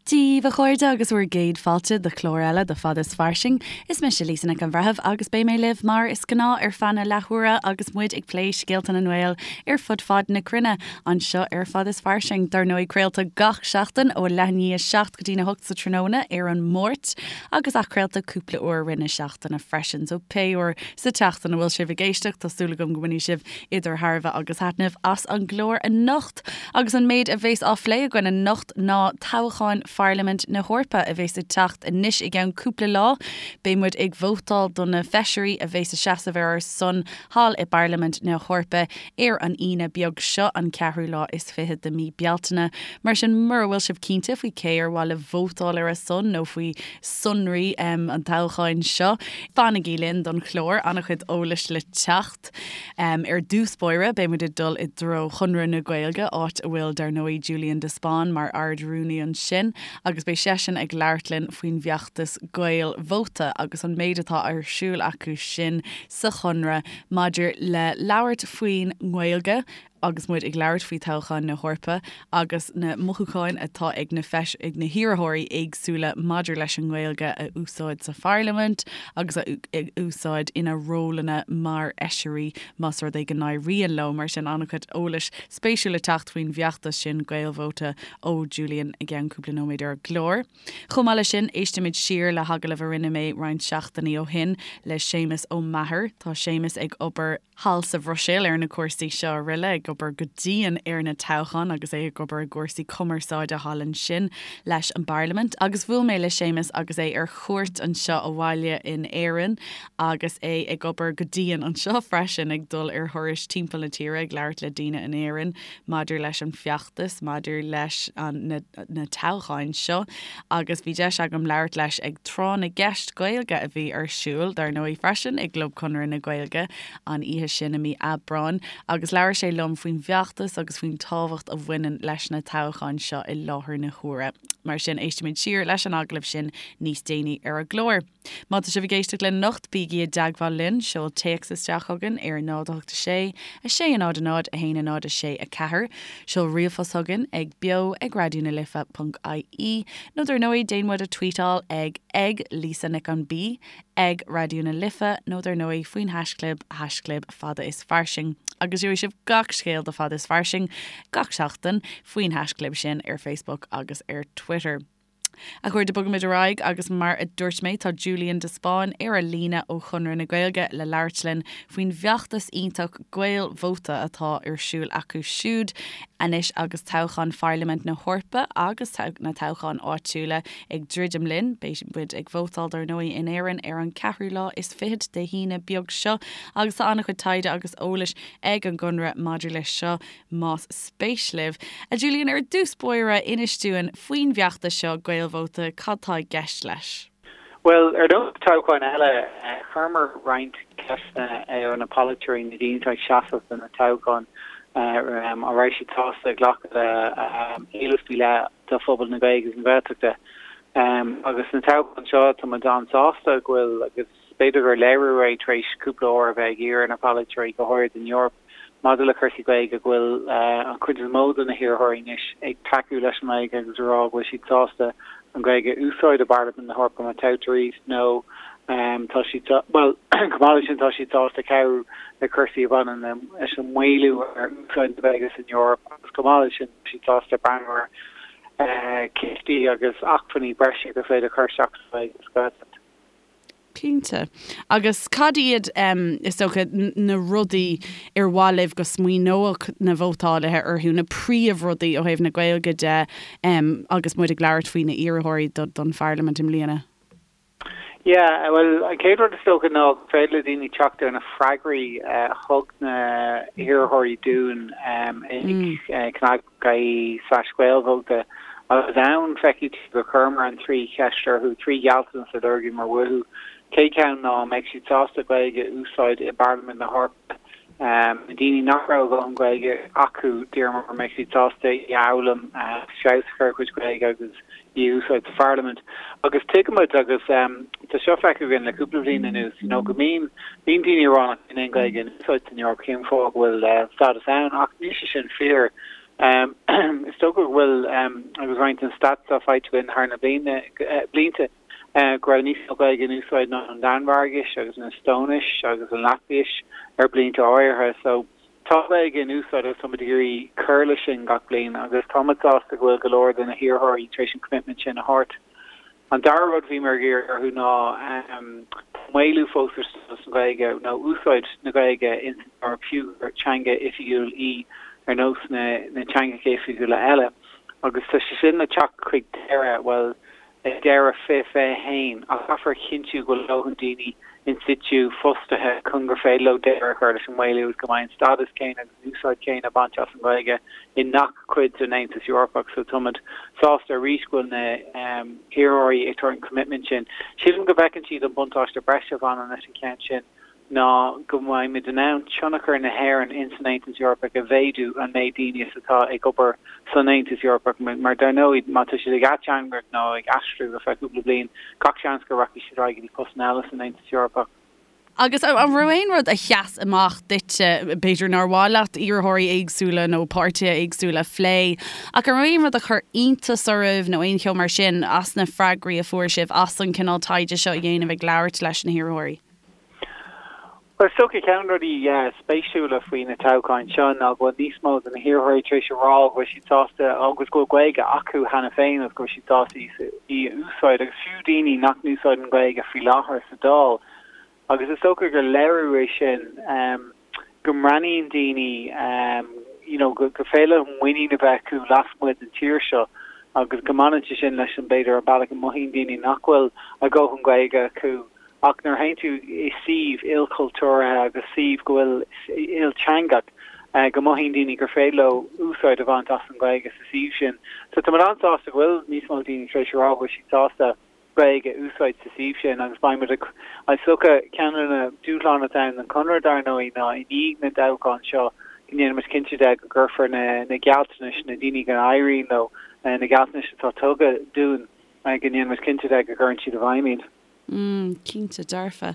Dia daoibh, a chairde, agus bhur gcéad fáilte do chlár eile de Fada is Fairsing. Is mise Lisa Nic an Bhreithimh agus beidh mé libh mar is gnáth ar feadh na leathuaire agus muid ag plé scéalta na nGael ar fud fad na cruinne anseo ar Fada is Fairsing. Dar ndóigh, craolta gach seachtain ó leath i ndiaidh a 7 go dtí'n 8 sa tráthnóna ar an Máirt agus athchraolta cúpla uair i rith na seachtaine freisin. So pé uair sa tseachtain a bhfuil sibh ag éisteacht, tá súil agam go mbainfidh sibh idir thairbhe agus thaitneamh as an gclár anocht. Agus an méid a bheas á phlé againn anocht ná toghcháin Pharlaimint na hEorpa a bheas ag teacht anois i gceann cúpla lá. Beidh muid ag vótáil do na feisirí a bheas ag seasamh ar ár son thall i bParlaimint na hEorpa ar an Aoine beag seo, an ceathrú lá is fichead de mí Bealtaine. Mar sin, mura bhfuil sibh cinnte faoi cé ar mhaith libh vótáil ar a son nó faoi sonraí an toghcháin seo, fanaigí linn don chlár, an-chuid eolais le teacht. Ar dtús báire, beidh muid ag dul i dtreo Chonradh na Gaeilge, áit a bhfuil, dar ndóigh, Julian de Spáinn mar Ard-Rúnaí ansin, agus beidh seisean ag labhairt linn faoin bhfeachtas Gaelvóta agus an méid atá ar siúl acu sin sa Chonradh maidir le labhairt faoin nGaeilge agus muid ag labhairt faoi toghchán na hEorpa agus na mothúcháin atá ag na feis ag na hiarrthóirí éagsúla maidir leis an nGaeilge a úsáid sa pharlaimint agus a úsáid ina rólanna mar fheisirí más rud é go n-éiríonn leo. Mar sin, an-chuid eolais spéisiúil le teacht faoin bhfeachtas sin Gaelvóta ó Julian i gceann cúpla nóiméad ar an gclár. Chomh maith leis sin, éistfimid siar le hagallamh a rinne mé roinnt seachtainí ó shin le Séamus Ó Meachair. Tá Séamus ag obair thall sa Bhruiséil ar na cúrsaí seo araile, ag obair go dian ar na toghcháin agus é ag obair i gcúrsaí cumarsáide thall ansin leis an bParlaimint. Agus bhuail mé le Séamus agus é ar chuairt anseo abhaile in Éirinn agus é ag obair go dian anseo freisin, ag dul ar thurais timpeall na tíre ag labhairt le daoine in Éirinn maidir leis an bhfeachtas, maidir leis an na na toghcháin seo agus bhí deis agam labhairt leis ag Tráth na gCeist Gaeilge a bhí ar siúl, dar ndóigh, freisin i gClub Chonradh na Gaeilge an oíche sin i mí Aibreáin agus labhair sé liom faoin bhfeachtas agus faoin tábhacht a bhaineann leis na toghcháin seo i láthair na huaire. Mar sin, éistfimid siar leis an agallamh sin níos déanaí ar an gclár. Má tá sibh ag éisteacht linn anocht, bígí i dteagmháil linn, seol téacs isteach chugainn ar 0 8 6 6 0 0 1 0 6 4, seol ríomhphost chugainn ag beo ag raidió na life ponc ie, nó dar ndóigh déan muid a tweetáil ag ag Lisa Nic an B, ag Raidió na Life, nó dar ndóigh faoin haischlib, haischlib fada is fairsing. Agus gheobhaidh sibh gach scéal de Fada is Fairsing gach seachtain faoin haischlib sin ar Facebook agus ar Twitter. A chairde, bogaimid ar aghaidh agus mar a dúirt mé, tá Julian de Spáinn ar an líne ó Chonradh na Gaeilge le labhairt linn faoin bhfeachtas iontach Gaelvóta atá ar siúl acu siúd anois agus toghchán Pharlaimint na hEorpa agus na toghcháin áitiúla ag druidim linn. Beidh muid ag vótáil dar ndóigh in Éirinn ar an ceathrú lá is fichead Dé hAoine beag seo agus tá an-chuid taighde agus eolais ag an gConradh maidir leis seo. Más spéis libh. A Julian, ar dtús báire, inis dúinn faoin bhfeachtas seo, Gaelvóta, cad tá i gceist leis? Bhuel, ar nós toghcháin eile, chuireamar roinnt ceisteanna ar na polaiteoirí, na daoine atá ag seasamh do na toghcháin, an raibh siad sásta glacadh le éilimh faoi leith do phobal na Gaeilge agus na Gaeltachta. Agus na toghcháin seo, tá muid an-sásta go bhfuil, agus b'fhéidir gur léiriú é tar éis cúpla uair a bheith ag iarraidh ar na polaiteoirí, go háirid in Eoraip, Maidir le cúrsaí Gaeilge, go bhfuil an chuid is mó de na hiarrthóirí anois ag tacú leis an nGaeilge agus ag rá go bhfuil siad sásta an Ghaeilge a úsáid i bParlaimint na hEorpa má toghtar iad nó tá siad, bhuel, chomh maith leis sin tá siad sásta cabhrú le cúrsaí a bhaineann leis an maolú ar úsáid na Gaeilge san Eoraip agus chomh maith leis sin tá siad sásta breathnú ar chistí agus acmhainní breise gur féidir a chur isteach sa Ghaeilge sa Ghaeltacht. Cinnte. Agus cad iad, is dócha, na rudaí ar mhaith libh go smaoineodh na vótálaithe orthu, na príomhrudaí ó thaobh na Gaeilge de agus muid ag labhairt faoi na hiarrthóirí don Pharlaimint i mbliana? Yeah, bhuel, an chéad rud is dócha ná gur féidir le daoine teacht ar na freagraí a thug na hiarrthóirí dúinn ag cnag ie slash Gaelvóta agus ann feicfidh tú gur chuireamar an trí cheist orthu, trí ghealltanas a lorgaíomar uathu. Chéad cheann ná an mbeidh siad sásta Gaeilge a úsáid i bParlaimint na hEorpa. Na daoine nach raibh a dhóthain Gaeilge acu, d'iarramar an mbeidh siad sásta í a fhoghlaim, feabhas a chur ar a gcuid Gaeilge agus í a úsáid sa Pharlaimint. Agus tuigimid, agus tá seo feicthe againn le cúpla bliain anuas, you know, go mbíonn, bíonn daoine ag rá nach mbíonn aon Ghaeilge in úsáid san Eoraip, cén fáth go bhfuil stádas ann? Ach níl sé sin fíor. Is dócha go bhfuil, agus roinnt den stats atá faighte againn thar na blianta, go raibh níos mó Gaeilge in úsáid ná an Danmhairgis agus an Eastóinis agus an Laitvis ar blianta áirithe. So tá Gaeilge in úsáid agus táimid ag iarraidh cur leis sin gach bliain agus táimid sásta go bhfuil go leor de na hiarrthóirí tar éis an commitment sin a thabhairt. An dara rud a bhíomar ag iarraidh orthu ná tá maolú fós ar stádas na Gaeilge nó úsáid na Gaeilge ins an Eoraip fiú gur teanga oifigiúil í ar nós na teangacha oifigiúla eile agus tá sé sin le teacht chuig deireadh, bhuel, ag deireadh 2021 ach caithfear a chinntiú go bhfuil a ndóthain daoine in situ fostaithe chun gur féidir leo deireadh a chur leis an maolú agus go mbeidh an stádas céanna agus an úsáid chéanna bainte as an Ghaeilge i ngach cuid den Aontas Eorpach. So táimid sásta arís go bhfuil na hiarrthóirí ag tabhairt an commitment sin. Sílim go bhfeiceann siad an buntáiste breise a bhaineann leis an cheann sin ná go mbeimid in ann tionchar na hÉireann ins an Aontas Eorpach a mhéadú an méid daoine is atá ag obair san Aontas Eorpach mar dar ndóigh má tá siad ag ateangaireacht nó ag aistriú ar feadh cúpla bliain gach seans go rachaidh siad ar aghaidh go dtí postanna eile san Aontas Eorpach. Agus an raibh aon rud a sheas amach duitse, b'fhéidir nár mhaith leat iarrthóirí éagsúla nó páirtithe éagsúla a phlé, ach an raibh aon rud a chuir iontas oraibh nó aon cheo mar sin as na freagraí a fuair sibh as an cineál taighde seo a dhéanamh ag labhairt leis na hiarrthóirí? Bhuel, is dócha ceann de na rudaí spéisiúla faoi na toghcháin seo ná go bhfuil níos mó de na hiarrthóirí tar éis a rá go bhfuil siad sásta agus go bhfuil Gaeilge acu cheana féin agus go bhfuil siad sásta í a úsáid, agus fiú daoine nach n-úsáideann Gaeilge faoi láthair sa Dáil. Agus is dócha gur léiriú é sin go mbreathnaíonn daoine you know go féidir leo muinín a bheith acu lasmuigh den tír seo agus go mbaineann sé sin leis an b'fhéidir an bealach a mothaíonn daoine nach bhfuil a ndóthain Gaeilge acu Ach nuair a théann tú i suíomh ilchultúrtha agus suíomh go bhfuil ilteangach, go mothaíonn daoine gur féidir leo úsáid a bhaint as an Ghaeilge sa suíomh sin. So tá mé an-sásta go bhfuil níos mó daoine tar éis a rá go bhfuil siad sásta Gaeilge a úsáid sa suíomh sin agus beidh muid ag, is dócha, ceann de na dúshláin atá ann don Chonradh dar ndóigh ná i ndiaidh na dtoghchán seo go ndéanfaimid cinnte de go gcuirfear na gealltanais, na daoine go n-éiríonn leo, na gealltanais atá tugtha dúinn, go ndéanfaimid cinnte de go gcuireann siad i bhfeidhm iad. Mm, cinnte dearfa.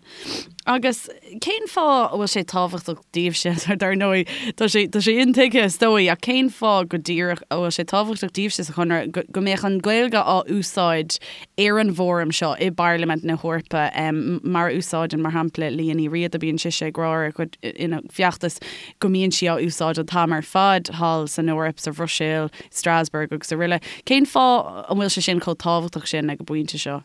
Agus cén fáth a bhfuil sé tábhachtach daoibhse, dar ndóigh, tá sé, tá sé intuigthe is dóigh, ach cén fáth go díreach a bhfuil sé tábhachtach daoibhse sa Chonradh go, go mbeadh an Ghaeilge á úsáid ar an bhfóram seo i bParlaimint na hEorpa, mar a úsáideann, mar shampla, Liadh Ní Riada, bíonn sise ag rá ar a cuid, ina feachtas go mbíonn sí á úsáid an t-am ar fad thall san Eoraip, sa Bhruiséil, Strasbourg agus araile. Cén fáth an bhfuil sé sin chomh tábhachtach sin ag an bpointe seo?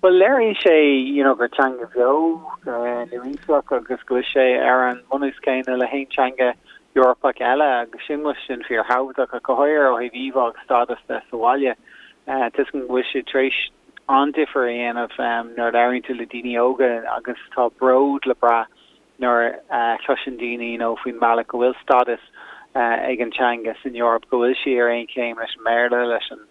Bhuel, léiríonn sé you know gur teanga bheo, nua-aoiseach agus go bhfuil sé ar an mbunús céanna le haon teanga Eorpach eile agus sin go bhfuil sin fíorthábhachtach ach go háirithe ó thaobh íomhá agus stádas de sa bhaile. Tuigim go bhfuil sé tar éis an-difear a dhéanamh nuair a labhraíonn tú le daoine óga agus tá bród le brath nuair a chloiseann daoine you know faoin mbealach go bhfuil stádas ag an teanga san Eoraip, go bhfuil sí ar aon chéim leis an mBéarla, leis an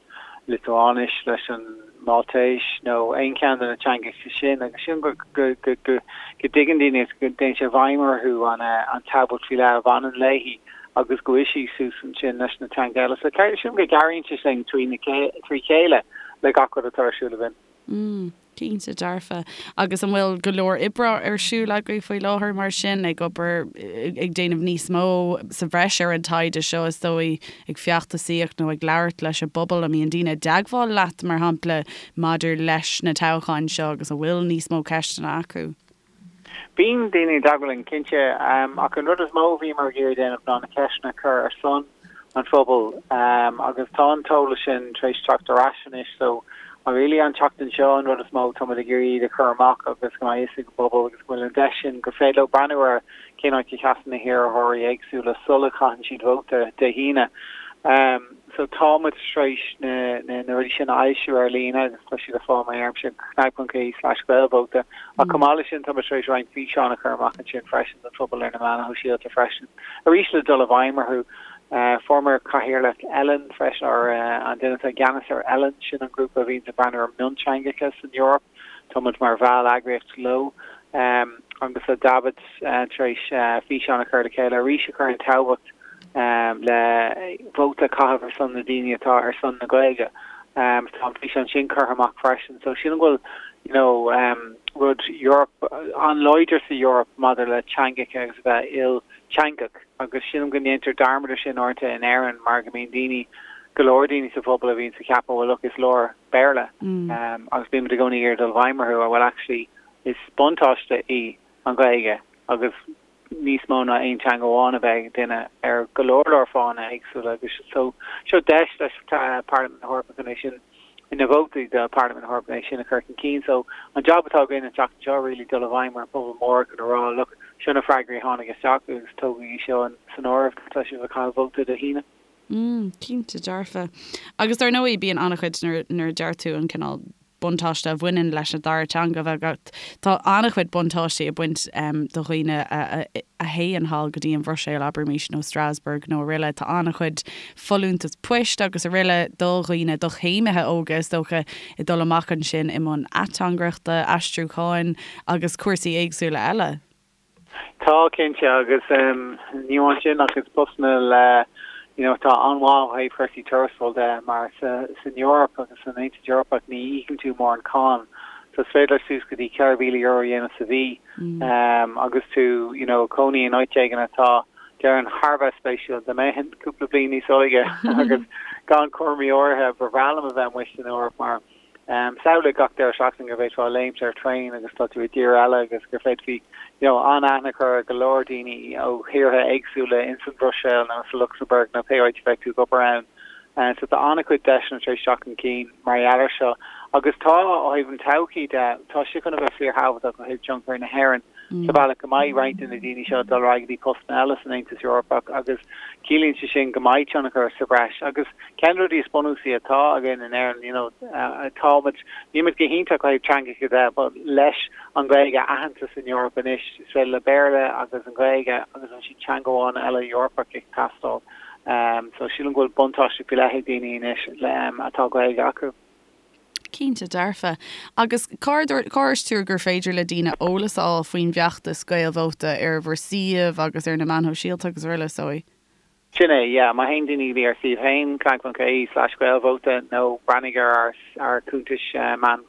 Liotuáinis, leis an Máltais nó aon cheann de na teangacha sin agus sin go go go go dtuigeann daoine agus go dtéann sé i bhfeidhm orthu an an tábhacht faoi leith a bhaineann léi agus go bhfuil sí suas ansin leis na teanga eile. So sílim go gcabhraíonn sé sin trí chéile le gach rud atá ar siúl againn. Mm. Cinnte dearfa. Agus an bhfuil go leor oibre ar siúl agaibh faoi láthair mar sin, ag obair, ag déanamh níos mó sa bhreis ar an taighde seo is dóigh, ag feachtasaíocht nó ag labhairt leis an bpobal? An mbíonn daoine i dteagmháil leat, mar shampla, maidir leis na toghcháin seo agus an bhfuil níos mó ceisteanna acu? Bíonn daoine i dteagmháil linn, cinnte, ach an rud is mó a bhíomar ag iarraidh déanamh ná na ceisteanna a chur ar son an phobail agus tá an t-eolas sin tar éis teacht ar ais anois so really an tseachtain seo an rud is mó táimid ag iarraidh iad a chur amach agus go mbeidh fhios ag an bpobal agus go bhfuil an deis sin gur féidir leo breathnú ar cén áit a sheasann na hiarrthóirí éagsúla sula gcaitheann siad vóta Dé hAoine. So tá muid tar éis na na rudaí sin a fhoilsiú ar líne agus tá siad ar fáil má iarraimse cnag.ie/gaelvóta. Ach chomh maith leis sin tá muid tar éis roinnt físeán a chur amach ansin freisin don phobal ar na meáin shóisialta freisin. Arís le dul i bhfeidhm orthu. Fuaireamar cathaoirleach ELAN freisin, or an duine atá i gceannas ar ELAN, sin an grúpa a bhíonns ag breathnú ar mionteangacha san Eoraip. Tá muid mar bhall-eagraíocht leo. Agus tá David tar éis físeán a chur le chéile arís a chuireann tábhacht le vóta a chaitheamh ar son na daoine atá ar son na Gaeilge. Tá an físeán sin curtha amach freisin. So sílim go bhfuil. you know rud Eoraip an-láidir sa Eoraip maidir le teangacha agus a bheith ilteangach agus sílim go ndéantar dearmad ar sin uaireanta in Éirinn mar go mbíonn daoine, go leor daoine sa phobal a bhíonns ag ceapadh well look is leor Béarla agus bímid i gcónaí ag iarraidh dul i bhfeidhm orthu well actually is buntáiste í an Ghaeilge agus níos mó ná aon teanga amháin a bheith ag duine ar go leor leor fáthanna éagsúla agus so seo deis leis Parlaimint na hEorpa chun é sin na vótaí do Parlaimint na hEorpa é sin a chur chun cinn. So an job atá againn an tseachtain seo really dul i bhfeidhm ar an phobal mór chun a rá look seo na freagraí a tháinig isteach agus tógaigí seo san áireamh tá sibh ag caitheamh vóta Dé hAoine. Mm, cinnte dearfa. Agus dar ndóigh bíonn an-chuid nuair nuair a deir tú an cineál buntáiste a bhaineann leis an dara teanga a bheith agat. Tá an-chuid buntáistí ag baint do dhaoine a théann thall go dtí an Bhruiséil, abraimis, nó Strasbourg nó aroile. Tá an-chuid folúntas poist agus aroile do dhaoine, do chéimithe óga is dócha, ag dul amach ansin i mbun ateangaireachta, aistriúcháin agus cúrsaí éagsúla eile. Tá, cinnte, agus ní amháin sin ach is postanna le, you know, atá an-mhaith ó thaobh chúrsaí tuarastal de mar sa, san Eoraip agus san Aontas Eorpach ní íocann tú mórán cáin so is féidir leat suas go dtí €4,000 a dhéanamh sa mhí agus tú, you know, ag cónaí in áit éigin atá, déarfainn, thar a bheith spéisiúil. Dá mbeinn cúpla bliain níos óige agus gan cúraimí áirithe, ba bhreá liom a bheith amuigh san Eoraip mar, Samhlaigh gach deireadh seachtaine go bhféadfá léimt ar traein agus tá tú i dtír eile agus gur féadfaí you know an-aithne a chur ar go leor daoine ó thíortha éagsúla ins an Bhruiséil nó sa Lucsamburg nó pé áit a bheidh tú ag obair ann. So tá an-chuid deiseanna tar éis teacht chun cinn mar gheall air seo. Agus tá, ó thaobh an todhchaí de, tá sé chun a bheith fíorthábhachtach ó thaobh tionchar na hÉireann sa bhealach go mbeidh roinnt de na daoine seo ag dul ar aghaidh go dtí postanna eile san Aontas Eorpach agus ciallaíonn sé sin go mbeidh tionchar sa bhreis agus Ceann de na rudaí is bunúsaí atá againn in Éirinn, you know, táimid, nílimid go hiontach ó thaobh teangacha de, but leis an Ghaeilge aitheanta san Eoraip anois, is féidir le Béarla agus an Ghaeilge agus ansin teanga amháin eile Eorpach ag teastáil. So sílim go bhfuil buntáiste faoi leith ag daoine anois atá Gaeilge acu. Cinnte dearfa. Agus cár dhúirt tú gur féidir le daoine eolas a fháil faoin bhfeachtas Gaelvóta ar bhur suíomh agus ar na meáin shóisialta agus araile, is dóigh? Sin é, yeah. Má théann daoine go dtí ár suíomh féin, cnag.ie slash gaelvóta, nó breathnaigh ar ár ár cuntais meán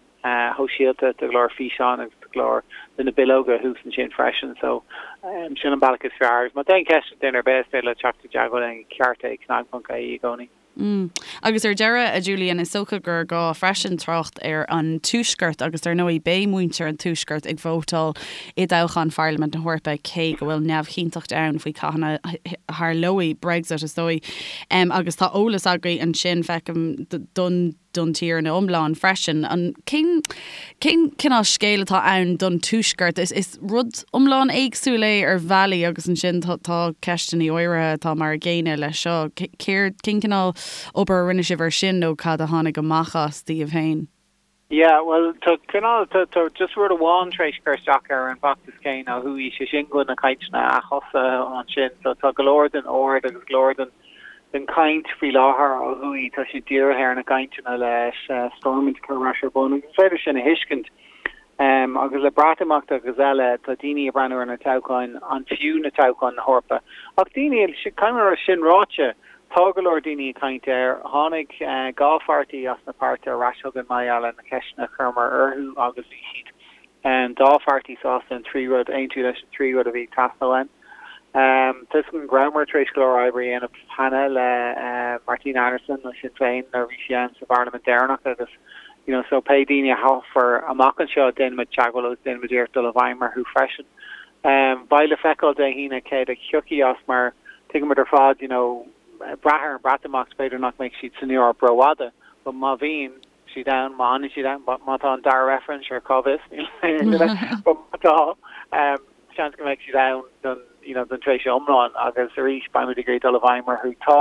shóisialta, tá go leor físeáin agus tá go leor de na bileoga thuas ansin freisin. So, sin an bealach is fearr. Agus má tá aon cheist ag duine ar bith, is féidir leo teacht i dteagmháil linn ag ceart ag cnag.ie i gcónaí. Mm. Agus ar deireadh, a Julian, is dócha gur gá freisin trácht ar an Tuaisceart agus dar ndóigh beidh muintir an Tuaiscirt ag vótáil i dtoghchán Pharlaimint na hEorpa cé go bhfuil neamhchinnteacht ann faoi cathain a tharlóidh Brexit is dóigh. Agus tá eolas agaibh ansin, feicim, don don tír ina iomlán freisin. An cén cén cineál scéal atá ann don Tuaisceart? Is is rud iomlán éagsúil é ar bhealaí agus ansin tá tá ceisteanna áirithe atá mar a gcéanna leis seo. Céard cén cineál obair a rinne sibh ar sin nó cad a tháinig amach as daoibh féin? Yeah, bhuel tá cineál tá tá just rud amháin tar éis cur isteach ar an bhfeachtas céanna ó thuaidh, sé sin go bhfuil na cainteanna ath-thosaithe ansin so tá go leor den aird agus go leor den den chaint faoi láthair ó thuaidh, tá sé dírithe ar na cainteanna leis Stormont a chur ar ais ar bun agus is féidir sin a thuiscint. Agus le Breatimeacht agus eile, tá daoine ag breathnú ar na toghcháin, an fiú na toghcháin na hEorpa? Ach daoine, caithfidh mé a rá, sin ráite, tá go leor daoine ag caint air. Tháinig 2 pháirtí as na páirtithe ar ais chugainn mar gheall ar na ceisteanna a chuireamar orthu agus bhí siad an dá pháirtí sásta an trí rud, aontú leis an trí rud a bhí ag teastáil uainn. Tá 'fhios agam go rabhamar tar éis go leor oibre a dhéanamh cheana le Martina Anderson ó Sinn Féin nuair a bhí sí ann sa bParlaimint deireanach agus you know so pé daoine a thoghfar amach anseo déanfaimid teagmháil agus déanfaimid iarracht dul i bhfeidhm orthu freisin. Beidh le feiceáil Dé hAoine céard a thiocfaidh as mar tuigimid ar fad you know brath ar an Breatimeacht b'fhéidir nach mbeidh siad san Eoraip rófhada but má bhíonn siad ann, má fhanann siad ann, má tá an dara reifreann, sure, cá bhfios, níl aon duine, but má tá, seans go mbeidh siad ann don, you know, don tréimhse iomlán agus arís beimid ag iarraidh dul i bhfeidhm orthu. Tá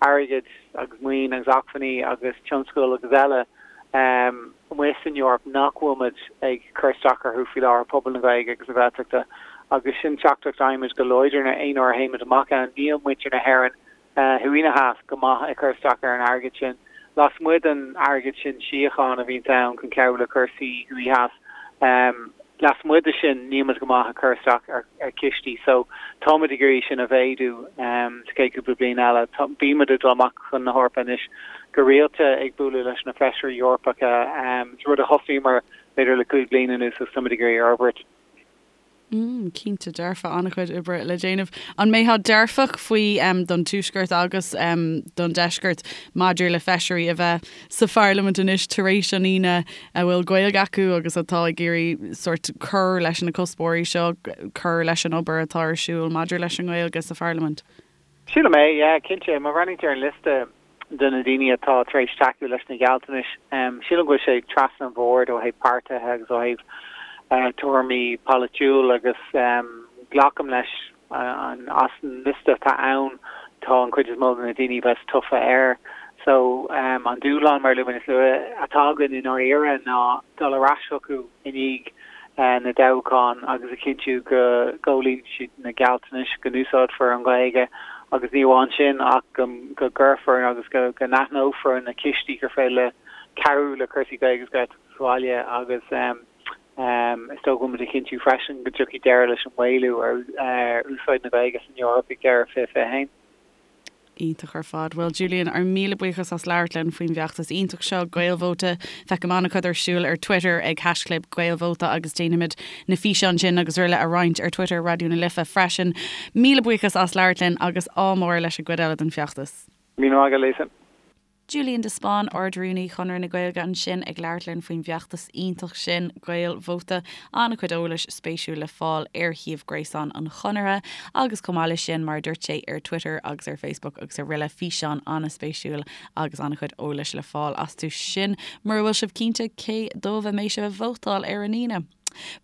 airgead agus maoin agus acmhainní agus tionscal agus eile amuigh san Eoraip nach bhfuil muid ag cur isteach orthu faoi láthair, pobal na Gaeilge agus na Gaeltachta, agus sin teachtaireacht a fhaighimid go láidir aon uair a théimid amach ann, níl muintir na hÉireann thuaidh ná theas go maith ag cur isteach ar an airgead sin. Lasmuigh den airgead sin síochána a bhíonns ann chun cabhrú le cúrsaí thuaidh theas. Lasmuigh de sin, níl muid go maith ag cur isteach ar chistí so táimid ag iarraidh sin a mhéadú sa chéad cúpla bliain eile. Bímid ag dul amach chun na hEorpa anois go rialta ag bualadh leis na feisirí Eorpacha, is rud a thosaíomar b'fhéidir le 5 bliana anuas agus táimid ag iarraidh a fhorbairt. Mm, cinnte dearfa, an-chuid oibre le déanamh. An mbeifeá dearfach faoi don Tuaisceart agus don Deisceart maidir le feisirí a bheith sa Pharlaimint anois tar éis an Aoine a bhfuil Gaeilge acu agus atá ag iarraidh sórt cur leis na cuspóirí seo, cur leis an obair atá ar siúl maidir leis an nGaeilge sa Pharlaimint? Sílim é, yeah, cinnte. Má bhreathnaíonn tú ar an liosta de na daoine atá tar éis tacú leis na gealltanais, sílim go bhfuil sé trasna an bhoird ó thaobh páirtithe agus ó thaobh tuairimí polaitiúil agus glacaim leis as an liosta atá ann tá an chuid is mó de na daoine a bheas tofa air. So an dúshlán, mar a luaigh mé níos luaithe, atá againn i ndáiríre ná dul ar ais chucu i ndiaidh na dtoghchán agus a chinntiú go gcomhlíonann siad na gealltanais, go n-úsáidfear an Ghaeilge agus ní amháin sin ach go gcuirfear agus go n-aithneofar na cistí gur féidir le cabhrú le cúrsaí Gaeilge agus Gaeltachta sa bhaile agus is dóigh go bhfuil muid ag cinntiú freisin go dtiocfaidh deireadh leis an maolú ar úsáid na Gaeilge san Eoraip ag deireadh 2021. Iontach ar fad. Bhuel Julian, ár míle buíochas as labhairt linn faoin bhfeachtas iontach seo, Gaelvóta. Feicim an-chuid ar siúl ar Twitter ag haischlib Gaelvóta agus déanfaimid na físeáin sin agus araile a roinnt ar Twitter Raidió na Life freisin. Míle buíochas as labhairt linn agus ádh mór leis an gcuid eile den bhfeachtas. Míle maith agat, Lisa. Julian de Spáinn, Ard-Rúnaí Chonradh na Gaeilge ansin ag labhairt linn faoin bhfeachtas iontach sin, Gaelvóta. An-chuid eolais spéisiúil le fáil ar shuíomh gréasáin an Chonartha agus chomh maith leis sin, mar a dúirt sé, ar Twitter agus ar Facebook agus araile, físeáin an-spéisiúil agus an-chuid eolais le fáil astu sin mura bhfuil sibh cinnte cé dóibh a mbeidh sibh ag vótáil ar an Aoine.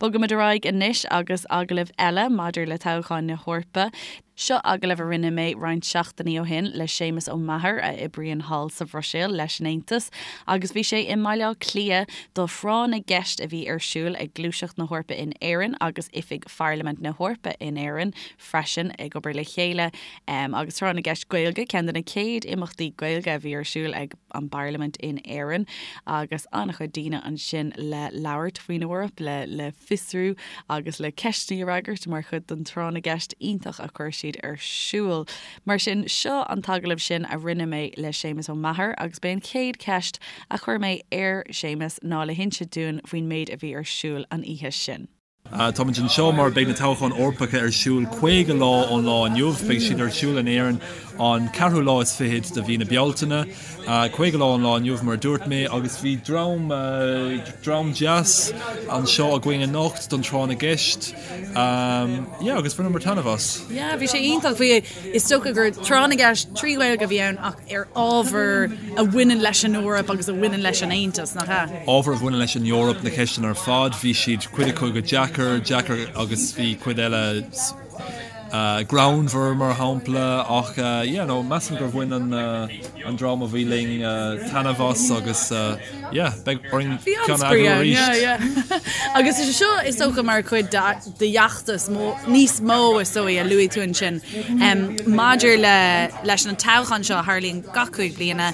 Bogaimid ar aghaidh anois agus agallamh eile maidir le toghcháin na hEorpa. Seo agallamh a rinne mé roinnt seachtainí ó shin le Séamus Ó Meachair a oibríonn thall sa Bhruiséil leis an Aontas agus bhí sé i mBaile Átha Cliath do thráth na gceist a bhí ar siúl ag Gluaiseacht na hEorpa in Éirinn agus Oifig Pharlaimint na hEorpa in Éirinn freisin ag obair le chéile agus Tráth na gCeist Gaeilge, ceann de na chéad imeachtaí Gaeilge a bhí ar siúl ag an bParlaimint in Éirinn agus an-chuid daoine ansin le labhairt faoin Eoraip, le le fiosrú agus le ceisteanna a fhreagairt mar chuid den tráth na gceist iontach a chuir siad ar siúl. Mar sin, seo an t-agallamh sin a rinne mé le Séamus Ó Meachair agus b'é an chéad cheist a chuir mé ar Séamus ná le hinse dúinn faoin méid a bhí ar siúl an oíche sin. Táimid anseo mar beidh na toghcháin Eorpacha ar siúl 50 lá ón lá inniu. Beidh siad ar siúl in Éirinn an ceathrú lá is fichead de mhí na Bealtaine. 50 lá ón lá inniu mar a dúirt mé agus bhí dream, dream deas anseo againn anocht don tráth na gceist. Yeah agus bhaineamar taitneamh as. Yeah bhí sé iontach. Bhí, is dócha gur tráth na gceist 3 Ghaeilge a bhí ann ach ar ábhar a bhaineann leis an Eoraip agus a bhaineann leis an Aontas, nach ea? Ábhar a bhaineann leis an Eoraip, na ceisteanna ar fad, bhí siad, cuid acu go deacair, deacair agus bhí cuid eile greannmhar mar shampla ach yeah no measaim gur bhain an an dream a bhí linn taitneamh as agus yeah beidh orainn ceann a eagrú arís. Yeah, yeah. Agus is é seo is dócha mar chuid de d'fheachtas níos mó is dóigh a luaigh tú ansin maidir le leis an toghchán seo a tharlaíonn gach 5 bliana,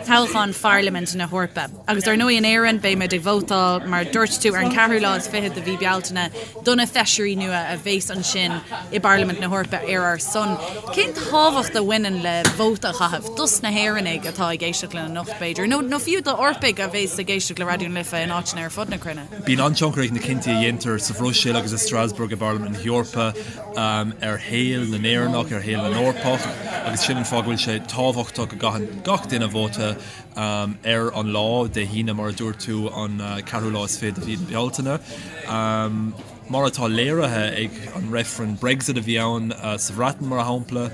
toghchán Pharlaimint na hEorpa. Agus ar ndóigh in Éirinn beidh muid ag vótáil mar a dúirt tú ar an ceathrú lá is fichead de mhí Bealtaine do na feisirí nua a bheas ansin i bParlaimint na hEorpa ar ár son. Cén tábhacht a bhaineann le vóta a chaitheamh dos na hÉireannaigh atá ag éisteacht linn anocht b'fhéidir, nó nó fiú d'Eorpaigh a bheas ag éisteacht le Raidió na Life in áiteanna ar fud na cruinne? Bíonn an-tionchar ag na cinntí a dhéantar sa Bhruiséil agus i Strasbourg i bParlaimint na hEorpa ar shaol na nÉireannach, ar shaol na nEorpach agus sin an fáth go bhfuil sé tábhachtach go gcaitheann gach duine vóta ar an lá, Dé hAoine mar a dúirt tú, an ceathrú lá is fiche de mhí na Bealtaine. Mar atá léirithe ag an reifreann Brexit a bhí ann sa Bhreatain mar shampla,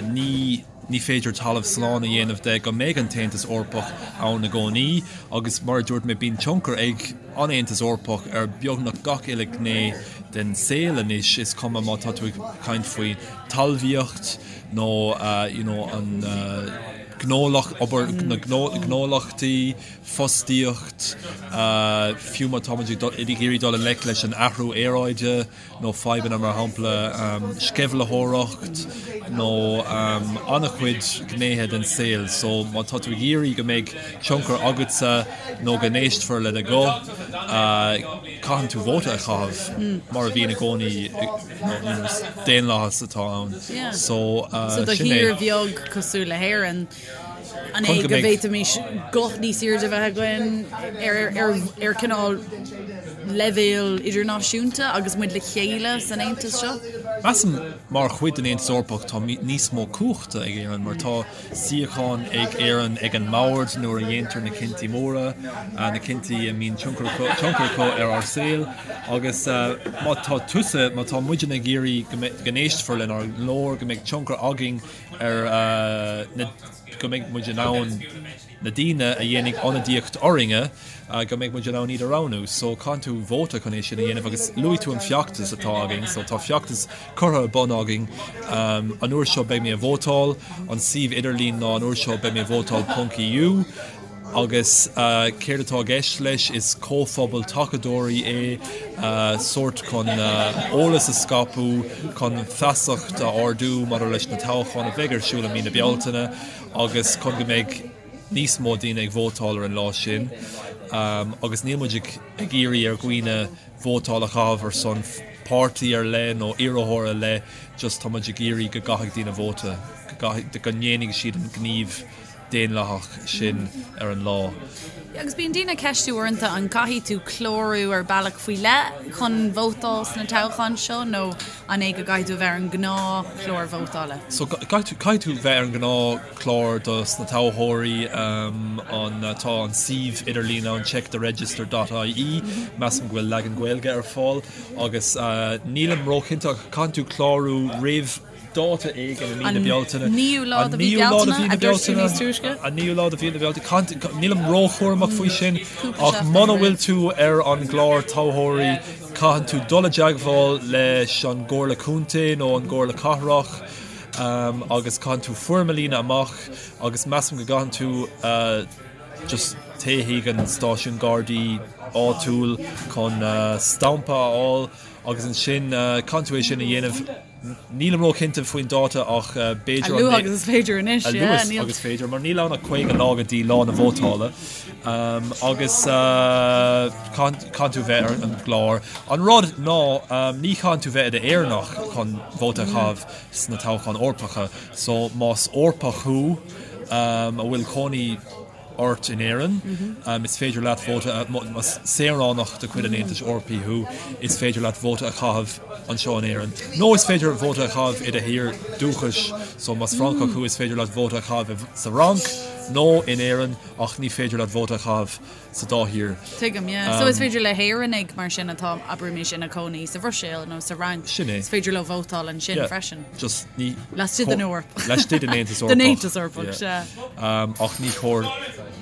ní. Ní féidir talamh slán a dhéanamh de go mbeidh an tAontas Eorpach ann i gcónaí agus, mar a dúirt mé, bíonn tionchar ag an Aontas Eorpach ar beagnach gach uile ghné den saol anois, is cuma má tá tú ag caint faoi talmhaíocht nó you know an gnólacht, obair na gnólachtaí, fostaíocht, fiú má táimid ag iarraidh dul i ngleic leis an athrú aeráide. nó fadhbanna mar shampla sceimhlitheoireacht nó an-chuid gnéithe den saol. So má tá tú ag iarraidh go mbeidh tionchar agatsa nó go n-éistfear le do ghuth, caitheann tú vóta a chaitheamh mar a bhíonn i gcónaí is daonlathas atá ann. So So do sin é. thír bheag cosúil le hÉirinn, an é go bhféadfaimis guth níos airde a bheith againn ar cineál leibhéal idirnáisiúnta agus muid le chéile san Aontas seo? Measaim mar chuid den Aontas Eorpach tá níos mó cumhachta ag Éirinn mar tá suíochán ag Éirinn ag an mbord nuair a dhéantar na cinntí móra, na cinntí a mbíonn tionchar acu ar ár saol agus má tá tusa, má tá muidne ag iarraidh go n-éistfear lenár nglór, go mbeidh tionchar againn ar na, go mbeidh muid in ann na daoine a dhéanfaidh ionadaíocht orainne, go mbeidh muid in ann iad a roghnú. So caitheann tú vóta chun é sin a dhéanamh agus luaigh tú an feachtas atá againn, so tá feachtas curtha ar bun againn. An uair seo beidh mé ag vótáil, an suíomh idirlín ná an uair seo beidh mé ag vótáil ponc EU agus céard atá i gceist leis is comhphobal tacadóirí é, sórt chun eolas a scaipeadh, chun feasacht a ardú maidir leis na toghcháin a bheidh ar siúl i mí na Bealtaine agus chun go mbeidh níos mó daoine ag vótáil ar an lá sin agus níl muid ag iarraidh ar dhaoine vótáil a chaitheamh ar son páirtí ar leith nó iarrthóir ar leith, just tá muid ag iarraidh go gcaithfidh daoine vóta, go gcaithfidh, go ndéanfaidh siad an gníomh daonlathach sin ar an lá. Agus bíonn daoine ag ceistiú uaireanta an gcaithfidh tú clárú ar bealach faoi leith chun vótáil sna toghcháin seo nó an é go gcaithfidh tú a bheith ar an ngnáthchlár vótála? So caithfidh tú bheith ar an ngnáthchlár dos na toghthóirí, an tá an suíomh idirlín ann checktheregister dot ie, measaim go bhfuil leagan Gaeilge ar fáil agus nílim róchinnte ach caithfidh tú clárú roimh dáta éigin i mí na Bealtaine. An naoú lá de mhí Bealtaine, a dúirt tú níos túisce? An naoú lá de mhí na Bealtaine. Nílim róchúramach faoi sin ach muna bhfuil tú ar an gclár toghthóirí caitheann tú dul i dteagmháil leis an gComhairle Contae nó an gComhairle Cathrach agus caitheann tú foirm a líonadh amach agus measaim go gcaitheann tú just téigh chuig an stáisiún Gardaí áitiúil chun stampa a fháil agus ansin caitheann tú é sin a dhéanamh Nílim róchinnte faoin dáta ach b'fhéidir an. A luaithe agus is féidir anois, yeah. A luaithe agus is féidir, mar níl ann ach 50 lá go dtí lá na vótála agus caitheann tú bheith ar an gclár. An rud ná ní chaitheann tú bheith i d'Éireannach chun vóta a chaitheamh sna toghcháin Eorpacha, so más Eorpach thú a bhfuil cónaí ort in Éirinn, is féidir leat vóta, más saoránach de chuid an Aontais Eorpaigh thú, is féidir leat vóta a chaitheamh anseo in Éirinn. Nó is féidir vóta a chaitheamh i do thír dúchais, so más Francach thú is féidir leat vóta a chaitheamh sa Fhrainc nó in Éirinn ach ní féidir leat vóta a chaitheamh sa dá thír. Tuigim, yeah. So is féidir le hÉireannaigh mar sin atá, abraimis, ina cónaí sa Bhruiséil nó sa Fhrainc, Sin é. is féidir leo vótáil ansin Yeah. freisin. Just ní. Laistigh den Eoraip. Laistigh den Aontas Eorpach. Den Aontas Eorpach, sea. Ach ní chóir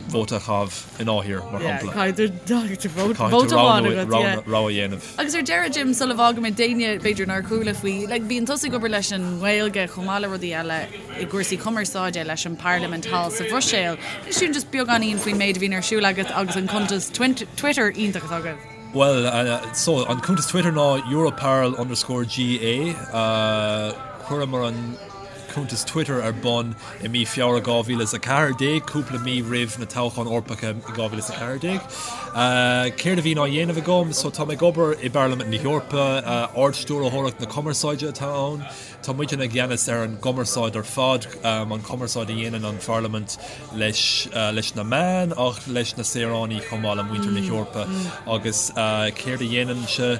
vóta a chaitheamh i ndá thír, mar shampla. Caithfidh tú vóta amháin agat, yeah. Rogha a dhéanamh. Agus ar deireadh, Jim, sula bhfágaimid d'éinne b'fhéidir nár chuala faoi, like, bíonn tusa ag obair leis an nGaeilge chomh maith le rudaí eile i gcúrsaí cumarsáide leis an bParlaimint thall sa Bhruiséil. Inis dúinn just beagáinín faoin méid a bhíonn ar siúl agat agus an cuntas Twitter iontach atá agaibh. Bhuel, so, an cuntas Twitter ná Europarl underscore GA. Chuireamar an cuntas Twitter ar bun i mí Feabhra 2014, cúpla mí roimh na toghcháin Eorpacha i 2014. Céard a bhíonn á dhéanamh agam? So, tá mé ag obair i bParlaimint na hEorpa, Ard-Stiúrthóireacht na Cumarsáide atá ann. Tá muidne i gceannas ar an gcumarsáid ar fad, an chumarsáid a dhéanann an Pharlaimint leis leis na meáin ach leis na saoránaigh chomh maith le muintir na hEorpa. Agus céard a dhéanaimse?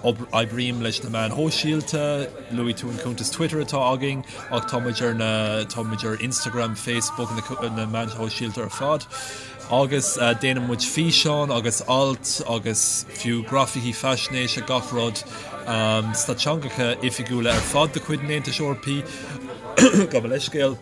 Oibrím leis na meáin shóisialta, luaigh tú an cuntas Twitter atá againn ach tá muid ar na tá muid ar Instagram, Facebook, na meáin shóisialta ar fad. Agus déanann muid físeáin agus ailt agus fiú grafaicí faisnéise, gach rud sna teangacha oifigiúla ar fad de chuid an Aontais Eorpaigh, gabh mo leithscéal,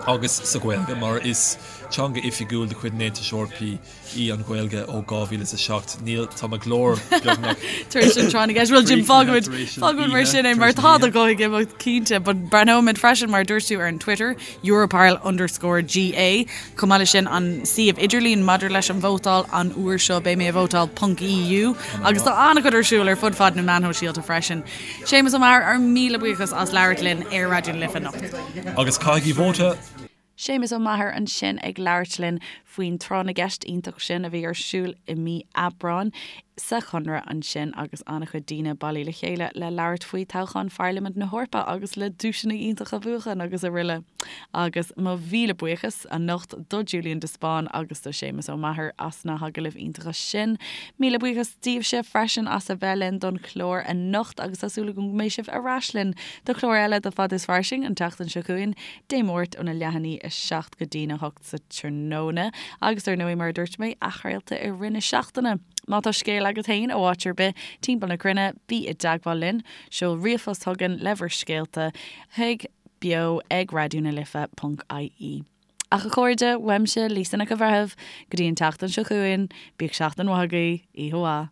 agus sa Ghaeilge, mar is teanga oifigiúil de chuid an Aontais Eorpaigh í an Ghaeilge ó 2007. Níl, tá mo ghlór beagnach Tar éis an tráth na gceist. Bhuel, Jim, fágfaimid, fágfaimid mar sin é, mar tá do ghuth ag imeacht cinnte, but breathnóimid freisin, mar a dúirt tú, ar an Twitter, Europarl underscore GA. Chomh maith leis sin, an suíomh idirlín maidir leis an vótáil, an uair seo beidh mé ag vótáil ponc EU, agus tá an-chuid ar siúl ar fud fad na meán shóisialta freisin. Séamus Ó Meachair, ár míle buíochas as labhairt linn ar Raidió na Life anocht. Agus caithigí vóta! Séamus Ó Meachair ansin ag labhairt linn. faoin tráth na gceist iontach sin a bhí ar siúl i mí Aibreáin sa Chonradh ansin agus an-chuid daoine bailithe le chéile le labhairt faoi toghchán Pharlaimint na hEorpa agus le duaiseanna iontacha a bhuachan agus araile. Agus mo mhíle buíochas anocht do Julian de Spáinn agus do Séamus Ó Meachair as na hagallaimh iontacha sin. Míle buíochas daoibhse freisin as a bheith linn don chlár anocht agus tá súil agam go mbeidh sibh ar ais linn do chlár eile de Fad is Fairsing an tseachtain seo chugainn, Dé Máirt óna leath i ndiaidh 7 go dtína 8. sa tráthnóna agus ar ndóigh mar a dúirt mé, athchraolta i rith na seachtaine. Má tá scéal agat féin ó áit ar bith timpeall na cruinne, bí i dteagmháil linn, seol ríomhphost chugainn le bhur scéalta chuig beo ag raidió na life ponc ie. Ach a chairde, uaimse, Lisa Nic an Bhreithimh, go dtí an tseachtain seo chugainn, bíodh seachtain mhaith agaibh, oíche mhaith.